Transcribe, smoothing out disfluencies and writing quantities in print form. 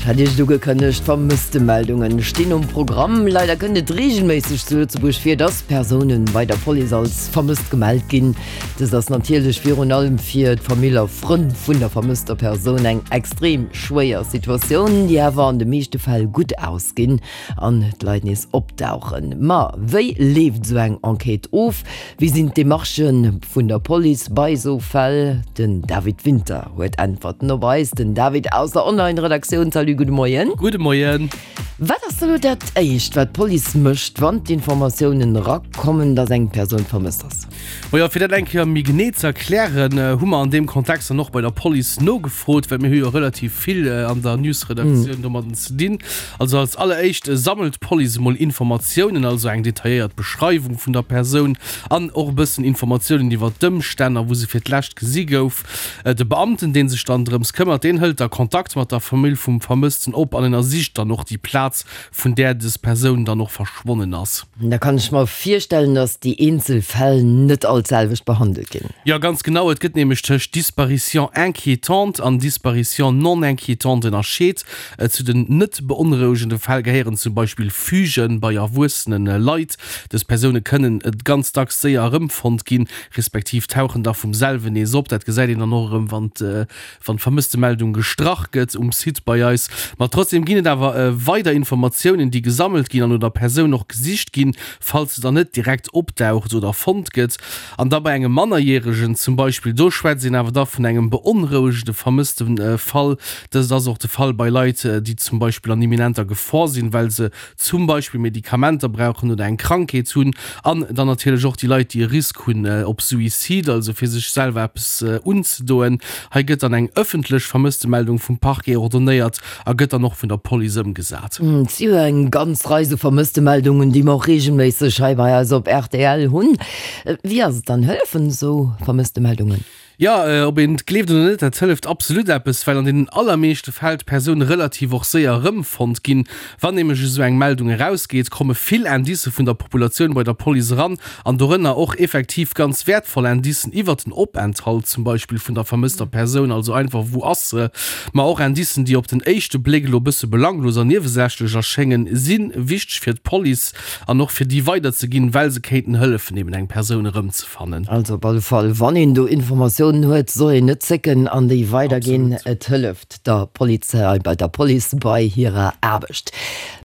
Ech hat Iech et ugekënnegt, Vermësstemeldungen stinn um Programm. Leider kënnt et reegelméisseg zu Lëtzebuerg vir, dass Persounen bei der Police als vermësst gemellt ginn. Dëst ass natierlech virun allem fir d'Famill a Frënn vun der vermësster Persoun eng extrem schwéier Situatioun, déi awer an de meeschte Fäll gutt ausginn an d'Leit nees opdauchen. Ma wéi leeft esou eng Enquête of? Wéi sinn d'Demarchë vun der Police bei esou Fäll? Den David Winter huet Äntwerten op eis. Den David aus der Online-Redaktioun. Salut, gudde Moien. Gudde Moien. Wat ass da lo dat Éischt, wat d'Police mécht, wann d'Informatiounen erakommen, datt eng Persoun vermësst ass? Majo, fir dat eng Kéier méi genee ze erklären, hu mer an deem Kontext dann och bei der Police nogefrot, well mir hu jo relativ vill an der News-Redaktioun domadden ze dinn. Also als alleréischt sammelt d'Police emol Informatiounen, also eng detailléiert Beschreiwung vun der Persoun an och e bëssen Informatiounen iwwer d'Ëmstänn a wou se fir d'lescht gesi gouf. De Beamten, dee sech dann drëms këmmert, deen hëlt da Kontakt mat der Famill vum Vermëssten op an ënnersicht dann och déi Plaz, vun där des Persoun dann och verschwonnen ass. Da kann ech mer virstellen, dass déi eenzel Fäll net all d'selwecht behandelt ginn. Jo, ganz genau. Et gëtt nämlech tëscht Disparition inquiétante an Disparition non inquiétante ënnerscheet. Zu den net beonrouegende Fäll gehéieren zum Beispill Fugen bei erwuessene Leit. Dës Persoune kënnen ganz dacks séier erëmfonnt ginn, respektiv tauchen da vum selwen nees op. Dat gesäit een dann och erëm, wann d'Vermësstemeldung gestrach gëtt um Site bei eis. Ma trotzdeem ginn et awer weider Informatiounen, déi gesammelt ginn an no der Persoun och gesicht ginn, falls se dann net direkt opdaucht oder fonnt gëtt. An da bei engem Mannerjäregen zum Beispill, do schwätzt een awer da vun engem beonrouegende Vermësstefall. Dëst ass och de Fall bei Leit, déi zum Beispill an imminenter Gefor sinn, well se zum Beispill Medikamenter brauchen oder eng Krankheet hunn. An dann natierlech och déi Leit, déi e Risk hunn op Suicide, also fir sech selwer eppes unzedoen. Hei gëtt dann eng ëffentlech Vermësstemeldung vum Parquet ordonnéiert a gëtt dann och vun der Police ëmgesat. Et si jo eng ganz Rei sou Vermësstemeldungen, déi mer och reegelméisseg hei bei eis op rtl hunn. Wéi ass et dann, hëllefen esou Vermësstemeldungen? Jo, ob een et gleeft oder net, dat hëlleft absolut eppes, well an deenen allermeeschte Fäll d'Persoun relativ och séier erëmfonnt ginn. Wann nämlech esou eng Meldung erausgeet, komme vill Indicë vun der Populatioun bei der Police eran an dorënner och effektiv ganz wäertvoll Indicen iwwert den Openthalt zum Beispill vun der vermësster Persoun, also einfach wou ass se, ma och Indicen, déi op den éischte Bléck elo e bësse belanglos an niewesächlech erschéngen, si wichteg fir d'Police an och fir déi weiderzeginn, well se kéinten hëllefen eben eng Persoun erëmzefannen. fannen. Also op alle Fall, wann een do Informatiounen huet, soll een net zécken an déi weiderginn. Et hëlleft der Polizei, bei der Police bei hirer Aarbecht.